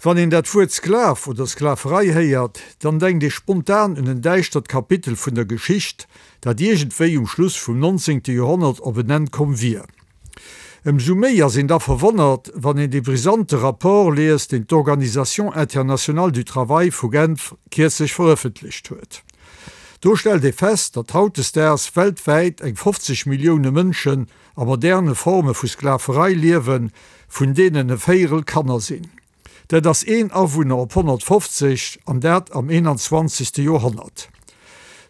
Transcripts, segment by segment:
Wann een dat Wuert Sklav oder Sklaverei héiert, dann denkt ee spontan un en däischtert Kapitel vun der Geschicht, dat iergendwéi um Schluss vum 19. Joerhonnert op en Enn komm wier. Ëmsou méi ass een da verwonnert, wann een dee brisante Rapport liest, deen d'Organisation internationale du travail vu Genf kierzlech verëffentlecht huet. Do stellt ee fest, datt hautdesdaags weltwäit eng 50 Millioune Mënschen a moderne Forme vu Sklaverei liewen, vun deenen e Véierel Kanner sinn. Dat ass een Awunner op 150, an dat am 21. Joerhonnert.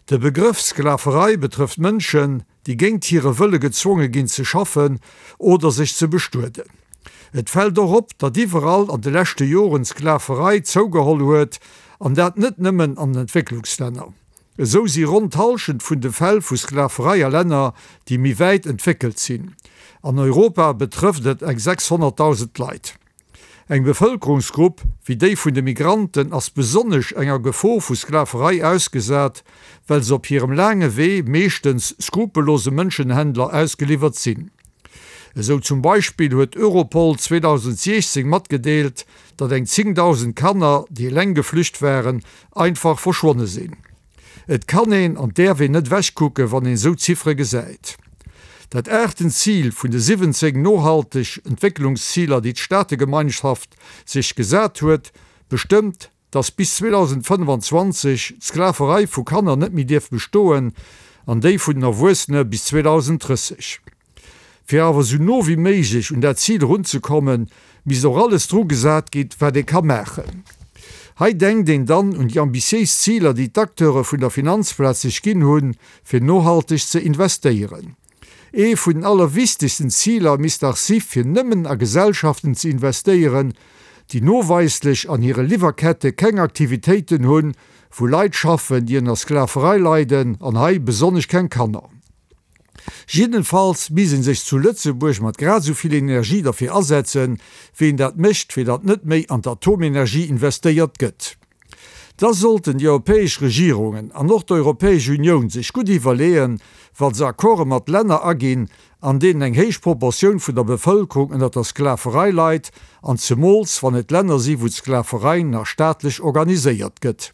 De Begrëff Sklaverei betrëfft Mënschen, déi géint hire Wëlle gezwonge ginn ze schaffen oder sech ze bestueden. Et fält och op, datt iwwerall an de leschte Joren d'Sklaverei zougeholl huet, an dat net nëmmen an den Entwécklungslänner. Esou si ronn d'Hallschent vun de Fäll vu Sklaverei a Länner, déi méi wäit entwéckelt sinn. An Europa betrëfft et eng 600.000 Leit. Eng Bevëlkerungsgrupp wéi déi vun de Migranten ass besonnesch enger Gefor vu Sklaverei ausgesat, well se op hirem laange Wee meeschtens skrupellose Mënschenhändler ausgeliwwert sinn. Esou zum Beispill huet Europol 2016 matgedeelt, datt eng 10.000 Kanner, déi eleng geflücht waren, einfach verschwonne sinn. Et kann een an däerf een net ewechkucken, wann een esou Ziffere gesäit. Dat aachten Zil vun de 17 nohalteg Entwécklungsziler, déi d'Staategemeinschaft sech gesat huet, bestëmmt, dass bis 2025 d'Sklaverei vu Kanner net méi dierf bestoen an déi vun den Erwuessene bis 2030. Fir awer esou no wéi méiglech un dat Zil erunzekommen, misst och alles dru gesat ginn, wat ee ka maachen. Hei denkt een dann un déi ambitiéis Ziler, déi d'Acteure vun der Finanzplaz sech ginn hunn, fir nohalteg ze investéieren. Ee vun den allerwichtegsten Ziler misst dach si fir nëmmen a Gesellschaften ze investéieren, déi noweislech an hire Liwwerkette keng Aktivitéiten hunn, wou Leit schaffen, déi ënner Sklaverei leiden, an hei besonnesch keng Kanner. Jiddenfalls misst een sech zu Lëtzebuerg mat grad esou vill Energie derfir asetzen, wéi een dat mécht, fir datt net méi an d'Atomenergie investéiert gëtt. Da sollten déi europäesch Regierungen an och d'Europäesch Unioun sech gutt iwwerleeën, wa se Accorde mat Länner aginn, an deenen eng héich Proportioun vun der Bevëlkerung ënner der Sklaverei leit, an zemools wann et Länner si wou d'Sklaverei nach staatlech organiséiert gëtt.